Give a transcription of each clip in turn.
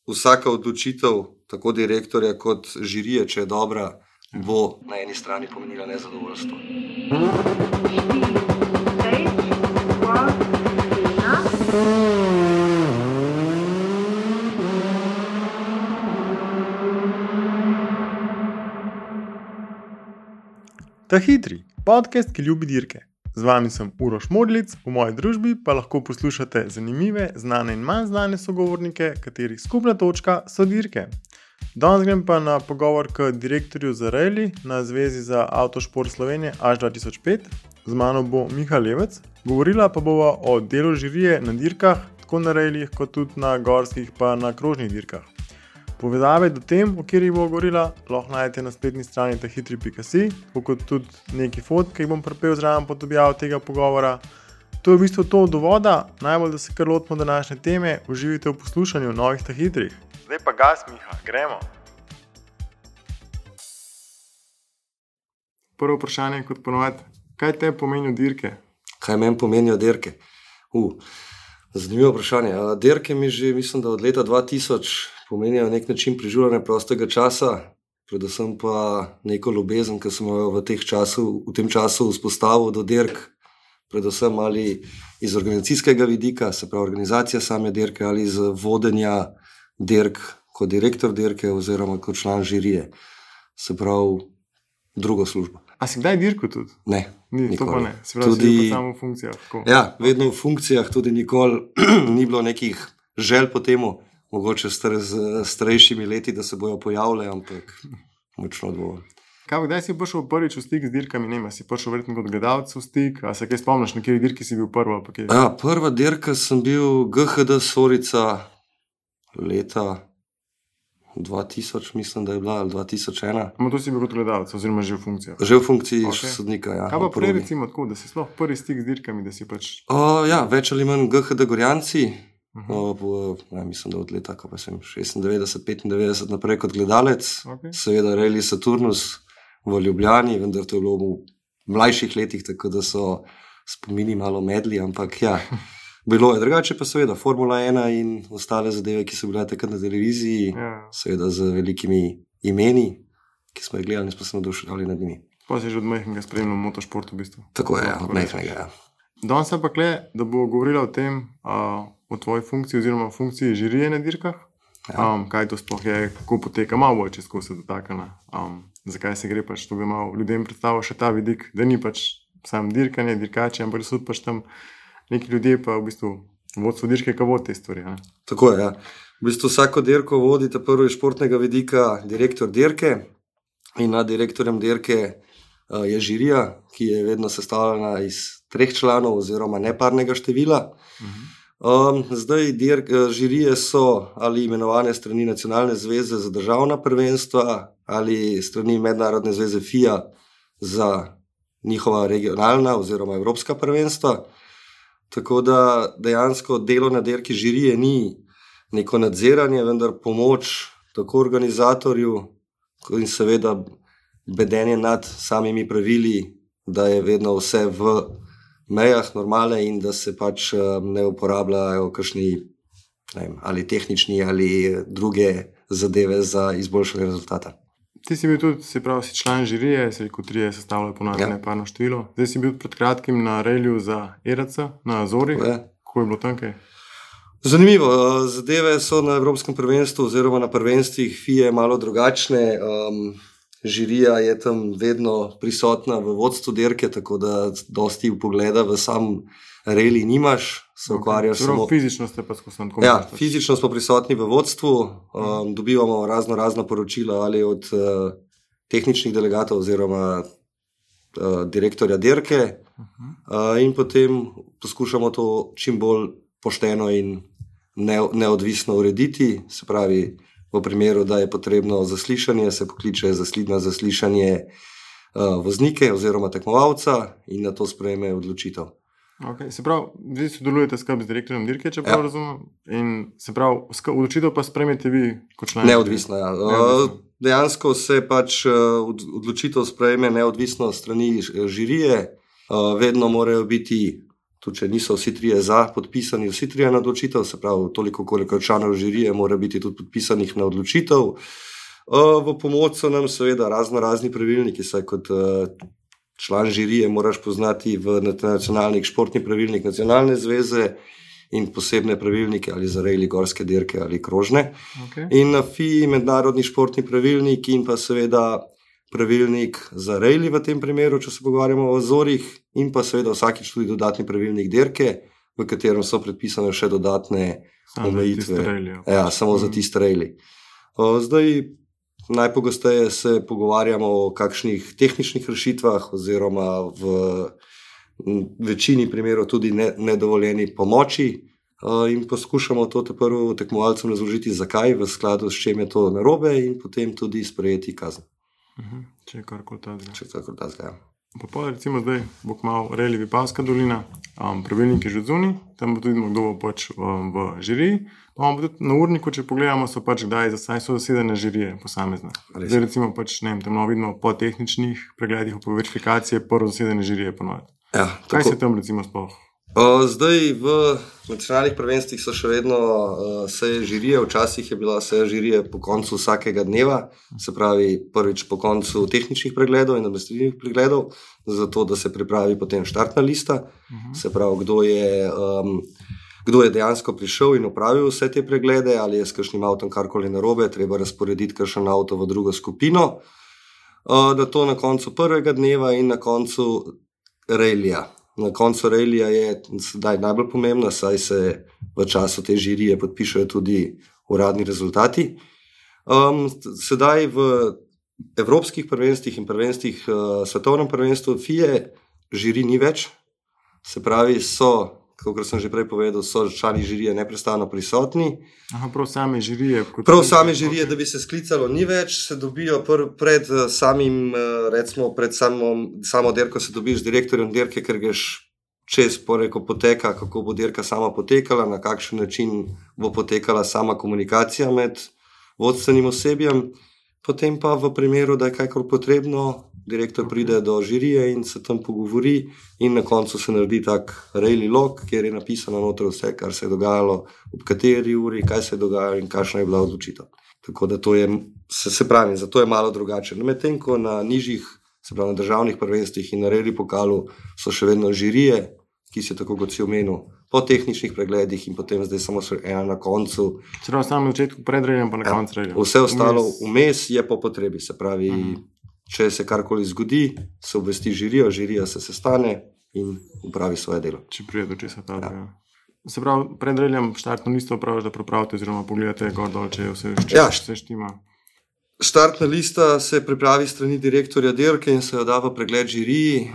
vsaka odločitev, tako direktorja kot žirije, če je dobra, bo na eni strani pomenila nezadovoljstvo. Ta hitri podcast, ki ljubi dirke. Z vami sem Uroš Modlic, v moji družbi pa lahko poslušate zanimive, znane in manj znane sogovornike, katerih skupna točka so dirke. Danes grem pa na pogovor k direktorju za rally na Zvezi za avtošport Slovenije až 2005. Z mano bo Miha Levec, govorila pa bova o delu žirije na dirkah, tako na rallyjih kot tudi na gorskih pa na krožnih dirkah. Povezave do tem, o katerih bo govorila, lahko najdete na spletni strani tahitri.si, kot tudi neki fotke, ki bom pripel zraven pod objavo tega pogovora. To je v bistvu to od uvoda, najbolj da se kar lotimo današnje teme, uživite v poslušanju novih tahitrih. Zdaj pa gas, Miha, gremo! Prvo vprašanje kot ponovadi, kaj te pomenijo dirke? Kaj meni pomenijo dirke? Zanimivo vprašanje. Dirke mi že, mislim, da od leta 2000 pomenijo nek način preživljanja prostega časa, predvsem pa neko ljubezen, ki sem jo v tem času vzpostavil do dirk, predvsem ali iz organizacijskega vidika, se pravi organizacija same dirke, ali iz vodenja dirk kot direktor dirke oziroma kot član žirije, se pravi drugo službo. A si kdaj dirko tudi? Ne, nikoli. To pa ne, se pravi, tudi, si pa samo v funkcijah. Tako. Ja, vedno v funkcijah, tudi nikoli ni bilo nekih želj po temu, mogoče z starejšimi leti, da se bojo pojavljali, ampak močno dovolj. Kdaj si prišel prvič v stik z dirkami? Ne, si prišel verjetno kot gledalec v stik, a se kaj spomniš, na kateri dirki si bil prva? Ja, prva dirka sem bil GHD Sorica leta 2000, mislim, da je bila, ali 2001. Ama to si bil kot gledalec, oziroma že v funkcijah? Že v funkciji sodnika, ja. Kaj pa prej recimo tako, da si sploh prvi stik z dirkami, da si pač... Ja, več ali manj GHD Gorjanci. Mislim, da od leta 96, 95 naprej kot gledalec, seveda Rally Saturnus v Ljubljani, vendar to je bilo v mlajših letih, tako da so spomini malo medli, ampak ja, bilo je drugače, pa seveda Formula 1 in ostale zadeve, ki so bile takrat na televiziji, seveda z velikimi imeni, ki smo jih gledali in smo se navduševali nad njimi. Pa si že od majhnega spremljal motošport v bistvu. Tako je, od majhnega, ja. Danes pa kle, da bo govorila o tem, o tvoji funkciji oziroma funkciji žirije na dirkah. Kaj to sploh je, kako poteka, malo bolj čez ko se dotakne. Zakaj se gre pač, to bi malo ljudem predstavil še ta vidik, da ni pač sam dirkanje, dirkači, ampak so pač tam neki ljudje pa v bistvu vodstvo dirke, ki vodi te stvari. Ne? Tako je, ja. V bistvu vsako dirko vodi ta prvo iz športnega vidika direktor dirke in nad direktorjem dirke je žirija, ki je vedno sestavljena iz 3 članov oziroma neparnega števila. Zdaj žirije so ali imenovane strani Nacionalne zveze za državna prvenstva ali strani Mednarodne zveze FIA za njihova regionalna oziroma evropska prvenstva. Tako da dejansko delo na dirki žirije ni neko nadziranje, vendar pomoč tako organizatorju in seveda bedenje nad samimi pravili, da je vedno vse v mejah normale in da se pač ne uporabljajo kakšni ali tehnični ali druge zadeve za izboljšanje rezultata. Ti si bil tudi, se pravi, si član žirije, se rekel 3 sestavljajo ponavljanje neparno število. Zdaj si bil pred kratkim na reliju za ERC na Azori. Kako je bilo tam kaj? Zanimivo, zadeve so na Evropskem prvenstvu oziroma na prvenstvih FIA malo drugačne. Žirija je tam vedno prisotna v vodstvu dirke, tako da dosti vpogleda v sam rally nimaš, se ukvarjaš samo... Fizično ste pa skozi tako. Ja, fizično smo prisotni v vodstvu, dobivamo razna poročila ali od tehničnih delegatov oziroma direktorja dirke in potem poskušamo to čim bolj pošteno in neodvisno urediti, se pravi, v primeru, da je potrebno zaslišanje, se pokliče na zaslišanje voznike oziroma tekmovalca in na to sprejme odločitev. Okay. Se pravi, vi sodelujete skupaj z direktorjem dirke, če prav razumem, in se pravi, odločitev pa sprejmete vi kot član? Neodvisno, ja. Dejansko se pač odločitev sprejme neodvisno strani žirije, vedno morajo biti tudi če niso vsi trije podpisani, vsi trije na odločitev, se pravi, toliko koliko članov žirije mora biti tudi podpisanih na odločitev. V pomoč so nam seveda razni pravilniki, saj kot član žirije moraš poznati v nacionalnih športni pravilnik nacionalne zveze in posebne pravilnike ali za rejli, gorske dirke ali krožne. Okay. In na FII mednarodni športni pravilnik in pa seveda pravilnik za rejli v tem primeru, če se pogovarjamo o Azorih, in pa seveda vsakič tudi dodatni pravilnik dirke, v katerem so predpisane še dodatne omejitve. Ja, samo za tiste rejli. Zdaj najpogosteje se pogovarjamo o kakšnih tehničnih rešitvah oziroma v večini primerov tudi nedovoljeni pomoči in poskušamo to prvo tekmovalcem razložiti, zakaj, v skladu s čem je to narobe in potem tudi sprejeti kazen. Če je karkoli tazga. Če je karkoli tazga, ja. Pa recimo zdaj bo kmalu rejli Vipavska dolina, pravilnik je že zunaj, tam bo tudi kdo bo pač v žiriji, pa imamo tudi na urniku, če pogledamo, so pač kdaj so zasedene žirije posamezne. Zdaj recimo pač, ne vem, tam vidimo po tehničnih pregledih, po verifikacije, prvo zasedene žirije ponoviti. Ja, kaj se tam recimo sploh? Zdaj v nacionalnih prvenstvih so še vedno seje žirije, včasih je bila seja žirije po koncu vsakega dneva, se pravi prvič po koncu tehničnih pregledov in administrativnih pregledov, zato da se pripravi potem štartna lista, se pravi kdo je dejansko prišel in opravil vse te preglede, ali je s kakšnim avtom karkoli narobe, treba razporediti kakšen avto v drugo skupino, da to na koncu prvega dneva in na koncu rejlija. Na koncu rejlija je sedaj najbolj pomembna, saj se v času te žirije podpišajo tudi uradni rezultati. Sedaj v evropskih prvenstvih in prvenstvih svetovnem prvenstvu FIE žiri ni več, se pravi so, kakor sem že prej povedal, so člani žirije neprestano prisotni. Prav same žirije. Prav same žirije, da bi se sklicalo, ni več, se dobijo pred samim, recimo pred samo dirko se dobiš z direktorjem dirke, ker greš čez poteka, kako bo dirka sama potekala, na kakšen način bo potekala sama komunikacija med vodstvenim osebjem, potem pa v primeru, da je kajkoli potrebno, direktor pride do žirije in se tam pogovori in na koncu se naredi tak rejli log, kjer je napisano noter vse, kar se je dogajalo, ob kateri uri, kaj se je dogajalo in kakšna je bila odločitev. Tako da to je, se pravi, zato je malo drugače. Medtem ko na nižjih, se pravi na državnih prvenstvih in na rejli pokalu so še vedno žirije, ki se tako kot si omenil, po tehničnih pregledih in potem zdaj samo ena na koncu. Čeprav samo na začetku pred rejljem pa na koncu rejljem. Vse ostalo vmes je po potrebi, se pravi, če se karkoli zgodi, se obvesti žirijo, žirija se sestane in upravi svoje delo. Če prije do česa ta ja. Se pravi, pred rejljem štartno listo upraviš, da prepravite oziroma pogledate gor dol, če vse štima. Štartna lista se pripravi strani direktorja dirke in se jo da v pregled žiriji.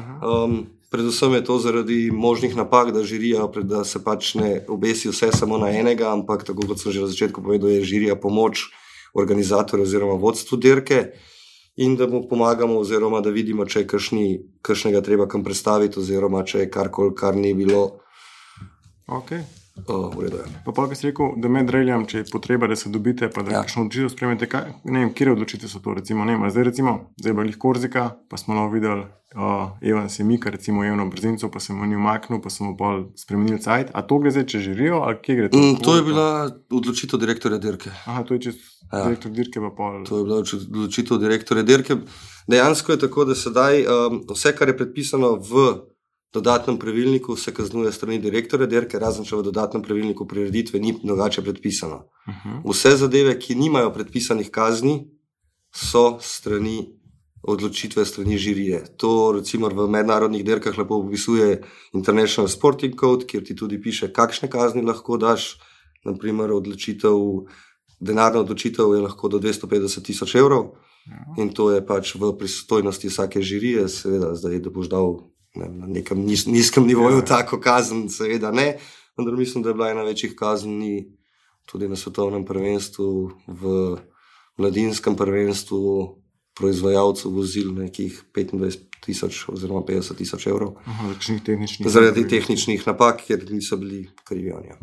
Predvsem je to zaradi možnih napak, da žirija, da se pač ne obesi vse samo na enega, ampak tako kot sem že na začetku povedal, je žirija pomoč organizatorju oziroma vodstvu dirke in da mu pomagamo oziroma da vidimo, če je kakšnega treba kam predstaviti oziroma če je karkoli, kar ni bilo. Ok. V redu je. Pa kaj si rekel, da med rejljem, če je potreba, da se dobite, pa da kakšno odločitev spremete, ne vem, kjer odločitev so to, recimo, ne vem, zdaj je bila Korzika, pa smo videli, Evan se mika, recimo Evno Brzinco, pa sem mu ni umaknil, pa sem mu pol spremenil cajt, a to gre zdaj, če žirijo, ali kje gre to? To je bila odločitev direktorja dirke. To je čez direktor dirke pa pol. To je bila odločitev direktorja dirke. Dejansko je tako, da sedaj vse, kar je predpisano v dodatnem pravilniku, se kaznuje strani direktorja dirke, razen če v dodatnem pravilniku prireditve ni drugače predpisano. Vse zadeve, ki nimajo predpisanih kazni, so odločitve strani žirije. To recimo v mednarodnih dirkah lepo opisuje International Sporting Code, kjer ti tudi piše, kakšne kazni lahko daš. Naprimer, denarna odločitev je lahko do 250,000 evrov in to je pač v pristojnosti vsake žirije, seveda zdaj, da boš dal na nekem nizkem nivoju tako kazen, seveda ne, vendar mislim, da je bila ena večjih kazni tudi na svetovnem prvenstvu, v mladinskem prvenstvu proizvajalcev vozil nekih 25,000 oziroma 50,000 evrov. Zaradi tehničnih napak, ker niso bili krivi oni.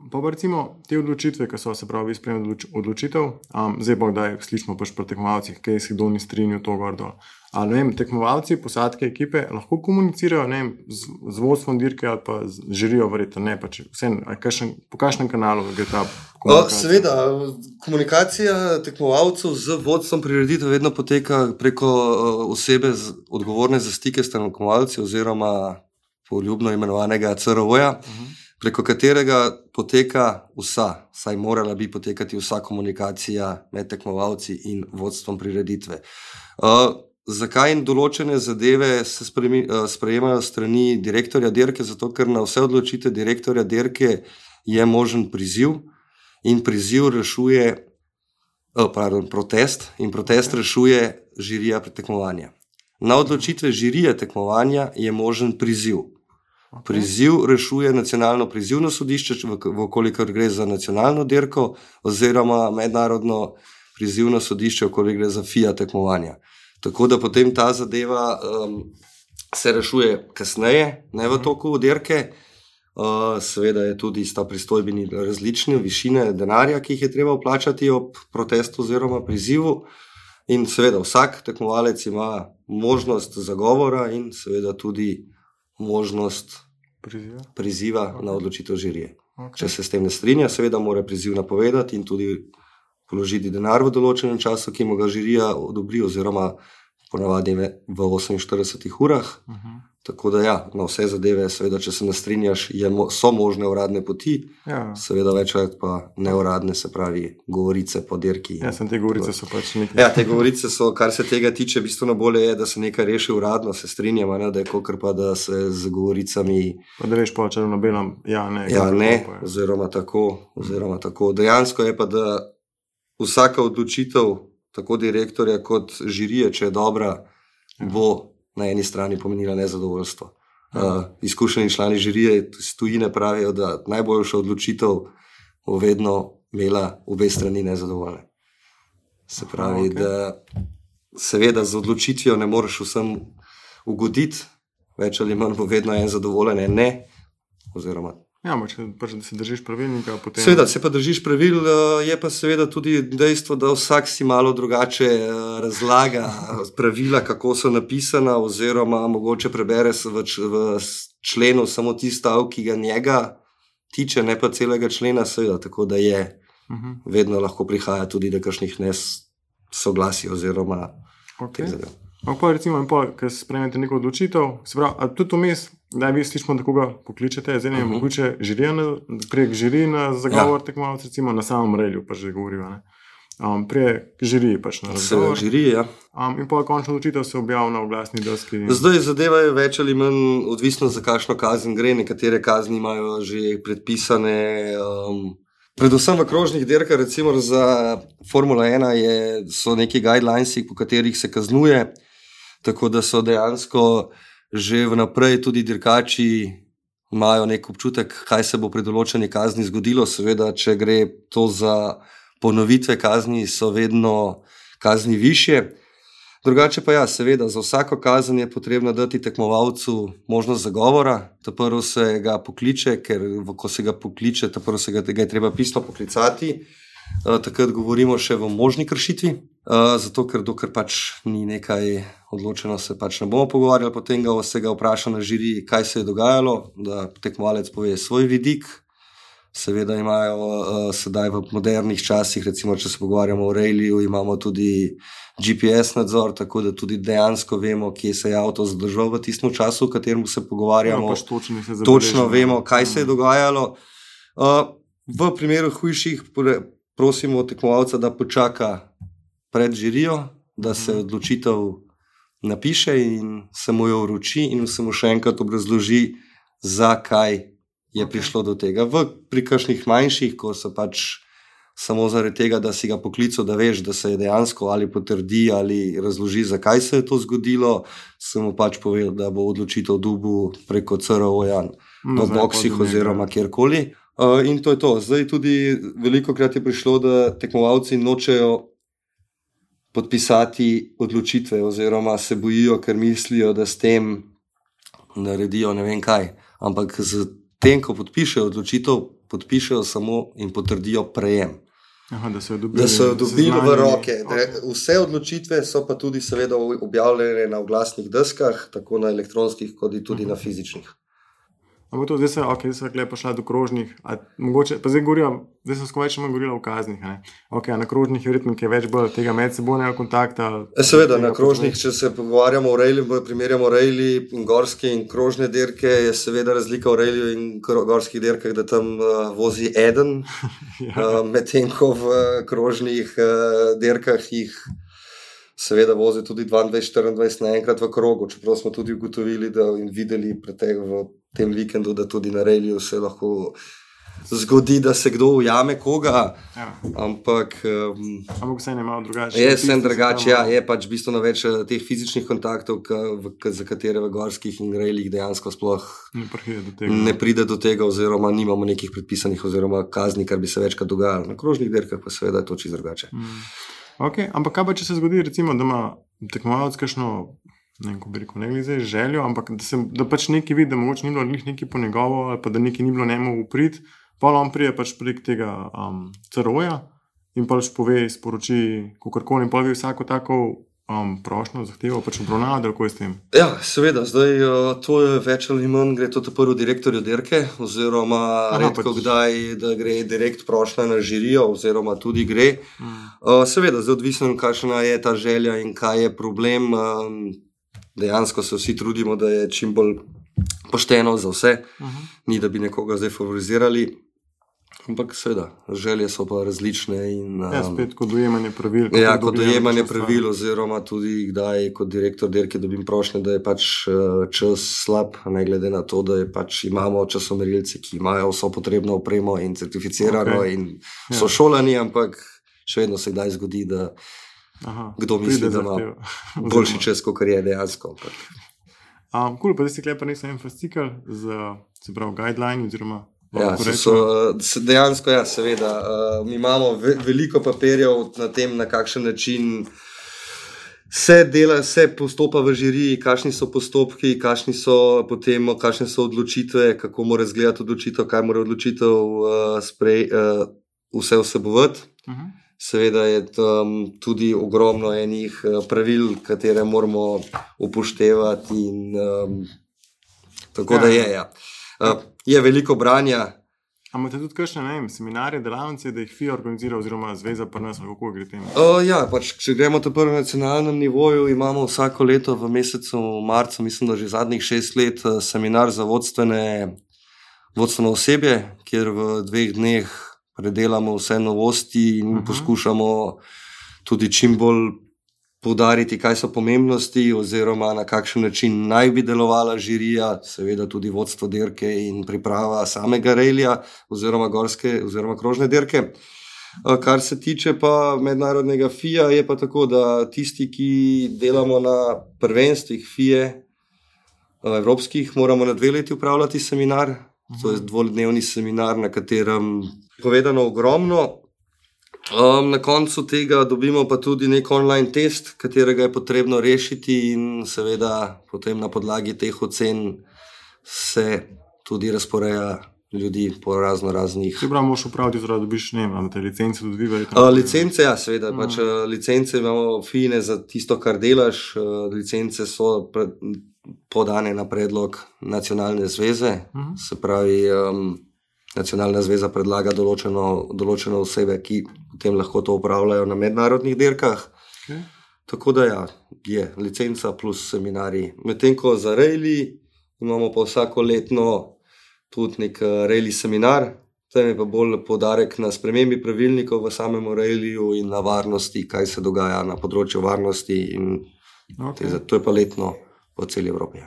Pa recimo te odločitve, ki so se pravi sprejemali odločitev, zdaj pa kdaj slišimo pač pri tekmovalcih, kaj si kdo ni strinjal to gor dol. Ali ne vem, tekmovalci, posadke, ekipe lahko komunicirajo, ne vem, z vodstvom dirke ali pa z žirijo, verjetno ne, pač vsem, po kakšnem kanalu gre ta komunikacija? Seveda, komunikacija tekmovalcev z vodstvom prireditev vedno poteka preko osebe odgovorne za stike s tekmovalci oziroma poljubno imenovanega CRO-ja, preko katerega poteka vsaj morala bi potekati vsa komunikacija med tekmovalci in vodstvom prireditve. Zakaj in določene zadeve se sprejemajo strani direktorja dirke? Zato, ker na vse odločitve direktorja dirke je možen priziv in priziv rešuje protest in protest rešuje žirija tekmovanja. Na odločitve žirije tekmovanja je možen priziv. Priziv rešuje nacionalno prizivno sodišče, vkolikor gre za nacionalno dirko, oziroma mednarodno prizivno sodišče, vkolikor gre za FIA tekmovanja. Tako da potem ta zadeva se rešuje kasneje, ne v toku dirke. Seveda je tudi sta pristojbini različne, višine denarja, ki jih je treba vplačati ob protestu oziroma prizivu. In seveda vsak tekmovalec ima možnost zagovora in seveda tudi možnost priziva na odločitev žirije. Če se s tem ne strinja, seveda mora priziv napovedati in tudi položiti denar v določenem času, ki mu ga žirija odobri, oziroma ponavadi v 48 urah. Tako da na vse zadeve, seveda, če se ne strinjaš, so možne uradne poti, seveda večkrat pa neuradne, se pravi govorice po dirki. Te govorice so pač nekaj. Te govorice so, kar se tega tiče, bistveno bolje je, da se nekaj reši uradno, se strinjamo, da je kakor pa, da se z govoricami... Pa da veš po črno na belem, ne, oziroma tako. Dejansko je pa, da vsaka odločitev, tako direktorja kot žirije, če je dobra, bo na eni strani pomenila nezadovoljstvo. Izkušeni člani žirije iz tujine pravijo, da najboljša odločitev bo vedno imela obe strani nezadovoljne. Se pravi, da seveda z odločitvijo ne moreš vsem ugoditi, več ali manj bo vedno en zadovoljen, en ne, oziroma... Pač da se držiš pravilnika, potem... Seveda, se pa držiš pravil, je pa seveda tudi dejstvo, da vsak si malo drugače razlaga pravila, kako so napisana, oziroma mogoče prebere v členu samo tisti stav, ki ga njega tiče, ne pa celega člena, seveda, tako da je vedno lahko prihaja tudi do kakšnih nesoglasij oziroma teh zadev. Pa recimo, ko sprejmete neko odločitev, se pravi, a tudi vmes, da vi slišimo, da koga pokličete, zdaj ne mogoče prek žirije na zagovor tekmovalcev, recimo na samem relju, pa že govorijo, ne? Prek žirije pač na razgovor. Žirije, In pa končno odločitev se objavi na oglasni deski. Zdaj zadeva je več ali manj odvisno, za kakšno kazen gre. Nekatere kazni imajo že predpisane. Predvsem v krožnih dirkah, recimo za Formula 1 so neki guidelines, po katerih se kaznuje, tako da so dejansko že vnaprej tudi dirkači imajo nek občutek, kaj se bo pri določeni kazni zgodilo. Seveda, če gre to za ponovitve kazni, so vedno kazni višje. Drugače pa seveda, za vsako kazen je potrebno dati tekmovalcu možnost zagovora. Prvo se ga pokliče, ker ko se ga pokliče, prvo se ga je treba pisno poklicati. Takrat govorimo še v možni kršitvi, zato ker dokler pač ni nekaj odločeno, se pač ne bomo pogovarjali, potem se ga vpraša na žiriji, kaj se je dogajalo, da tekmovalec pove svoj vidik. Seveda imajo sedaj v modernih časih, recimo če se pogovarjamo o ralliju, imamo tudi GPS nadzor, tako da tudi dejansko vemo, kje se je avto zadržal v tistem času, v katerem se pogovarjamo. Točno vemo, kaj se je dogajalo. V primeru hujših prosimo tekmovalca, da počaka pred žirijo, da se odločitev napiše in se mu jo vroči in se mu še enkrat obrazloži, zakaj je prišlo do tega. Pri kakšnih manjših, ko se pač samo zaradi tega, da si ga poklical, da veš, da se je dejansko ali potrdi ali razloži, zakaj se je to zgodilo, se mu pač povedal, da bo odločitev dobil preko CRO-ja v boksih oziroma kjerkoli. In to je to. Zdaj tudi veliko krat je prišlo, da tekmovalci nočejo podpisati odločitve oziroma se bojijo, ker mislijo, da s tem naredijo ne vem kaj. Ampak z tem, ko podpišejo odločitev, podpišejo samo in potrdijo prejem. Aha, da so jo dobili v roke. Vse odločitve so pa tudi seveda objavljene na oglasnih deskah, tako na elektronskih, kot tudi na fizičnih. Ampak to, zdaj so lepo šla do krožnih, mogoče, pa zdaj so skoraj še manj govorila o kaznih. Na krožnih je verjetno več bolj tega medsebojnega kontakta. Seveda, na krožnih, če se pogovarjamo o rejli, primerjamo rejli in gorske in krožne dirke, je seveda razlika v rejli in gorskih dirkah, da tam vozi eden, medtem ko v krožnih dirkah jih seveda vozi tudi 22-24 naenkrat v krogu, čeprav smo tudi ugotovili in videli v tem vikendu, da tudi na reliju se lahko zgodi, da se kdo ujame koga, ampak vse ne malo drugače. Je vse drugače, je pač bistveno več teh fizičnih kontaktov, za katere v gorskih in reljih dejansko sploh ne pride do tega, oziroma nimamo nekih predpisanih oziroma kazni, kar bi se večkrat dogajalo. Na krožnih dirkah pa seveda je to čisto drugače. Ampak kaj pa, če se zgodi, recimo, da ima tekmovalec kakšno, ne glede zdaj željo, ampak da pač nekaj vidi, da mogoče ni bilo nekaj po njegovo, ali pa da nekaj ni bilo njemu v prid, pa on prije pač prek tega CRO-ja in pač pove, sporoči kakorkoli in pa vi vsako tako prošnjo, zahtevo pač obravnava, da kako je s tem? Ja, seveda, zdaj to je več ali manj, gre to prvo direktorju dirke, oziroma redko kdaj, da gre direkt prošnja na žirijo, oziroma tudi gre. Seveda, zdaj odvisno, kakšna je ta želja in kaj je problem. Dejansko se vsi trudimo, da je čim bolj pošteno za vse, ni da bi nekoga zdaj favorizirali. Ampak seveda, želje so pa različne. Spet kot dojemanje pravil. Kot dojemanje pravil, oziroma tudi kdaj kot direktor dirke dobim prošnje, da je pač čas slab, ne glede na to, da je pač imamo časomerilce, ki imajo vso potrebno opremo in certificirano in so šolani, ampak še vedno se kdaj zgodi, da kdo misli, da ima boljši čas, kot je dejansko. Pa zdaj si klepa nisem en fascikl z guideline oziroma dejansko, seveda. Mi imamo veliko papirjev na tem, na kakšen način se postopa v žiriji, kakšni so postopki, kakšne so odločitve, kako mora izgledati odločitev, kaj mora odločitev vse vsebovati. Seveda je tam tudi ogromno enih pravil, katere moramo upoštevati in tako da je. Je veliko branja. Imate tudi kakšne, seminarje, delavnice, da jih FIA organizira oziroma zveza pri nas, kako gre tem? Pač, če gremo to prvo na nacionalnem nivoju, imamo vsako leto v mesecu marcu, mislim, da že zadnjih 6 let, seminar za vodstveno osebje, kjer v 2 dneh predelamo vse novosti in poskušamo tudi čim bolj poudariti, kaj so pomembnosti oziroma na kakšen način naj bi delovala žirija, seveda tudi vodstvo dirke in priprava samega rejlja oziroma gorske oziroma krožne dirke. Kar se tiče pa mednarodnega FIA, je pa tako, da tisti, ki delamo na prvenstvih FIA evropskih, moramo na 2 leti upravljati seminar. To je 2-dnevni seminar, na katerem je povedano ogromno. Na koncu tega dobimo pa tudi nek online test, katerega je potrebno rešiti in seveda potem na podlagi teh ocen se tudi razporeja ljudi po raznih. Ti prav moš upraviti, da dobiš, imate licence tudi vi? Licence, seveda. Licence imamo fine za tisto, kar delaš. Licence so podane na predlog nacionalne zveze, se pravi, nacionalna zveza predlaga določene osebe, ki potem lahko to upravljajo na mednarodnih dirkah. Tako da je licenca plus seminarji. Medtem ko za rejli imamo pa vsako letno tudi nek rejli seminar, tam je pa bolj poudarek na spremembi pravilnikov v samem rejliju in na varnosti, kaj se dogaja na področju varnosti in to je pa letno po celi Evropi.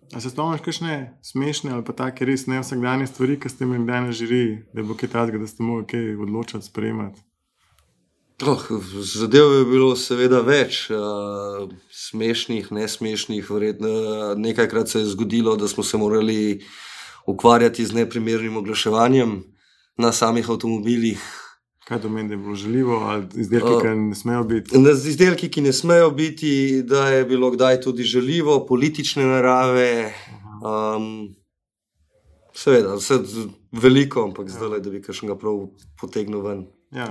A se spomniš kakšne smešne ali pa take res ne vsakdanje stvari, ki ste imeli kdaj na žiriji, da bo kaj takega, da ste mogli kaj odločati, sprejemati? Zadev je bilo seveda več, smešnih, nesmešnih, verjetno nekajkrat se je zgodilo, da smo se morali ukvarjati z neprimernim oglaševanjem na samih avtomobilih. Kaj to meni, da je bilo žaljivo ali izdelki, ki ne smejo biti? Izdelki, ki ne smejo biti, da je bilo kdaj tudi žaljivo, politične narave. Seveda, vse veliko, ampak zdaj, da bi kakšnega prav potegnil ven. Ja.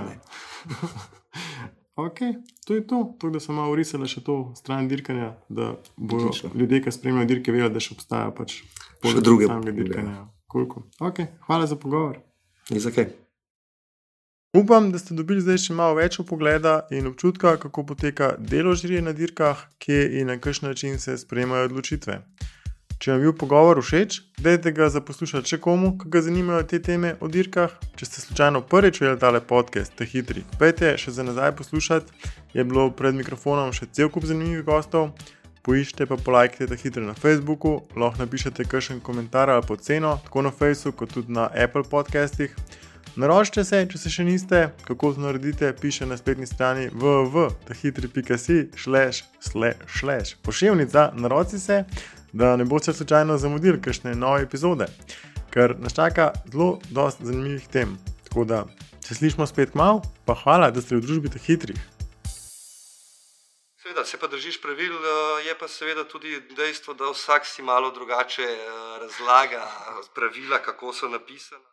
Ok, to je to. To, da sem malo urisala še to stran dirkanja, da bodo ljudje, ki spremljajo dirke, vedeli, da še obstaja pač še druge samega dirkanja. Cool. Ok, hvala za pogovor. Ni za kaj. Upam, da ste dobili zdaj še malo več pogleda in občutka, kako poteka delo žirije na dirkah, kje in na kakšen način se sprejemajo odločitve. Če vam je bil pogovor všeč, dajte ga za poslušati še komu, ki ga zanimajo te teme o dirkah. Če ste slučajno prvič videli tale podcast, Ta hitri, pejte še za nazaj poslušati, je bilo pred mikrofonom še cel kup zanimivih gostov. Poiščite pa polajkite Ta hitri na Facebooku, lahko napišete kakšen komentar ali oceno, tako na Facebooku kot tudi na Apple podcastih. Naročite se, če se še niste, kako to naredite, piše na spletni strani www.tahitri.si/ poševnica, naroči se, da ne boste slučajno zamudili kakšne nove epizode, ker nas čaka zelo dosti zanimivih tem. Tako da se slišimo spet kmalu, pa hvala, da ste v družbi Teh hitrih. Seveda, se pa držiš pravil, je pa seveda tudi dejstvo, da vsak si malo drugače razlaga pravila, kako so napisana.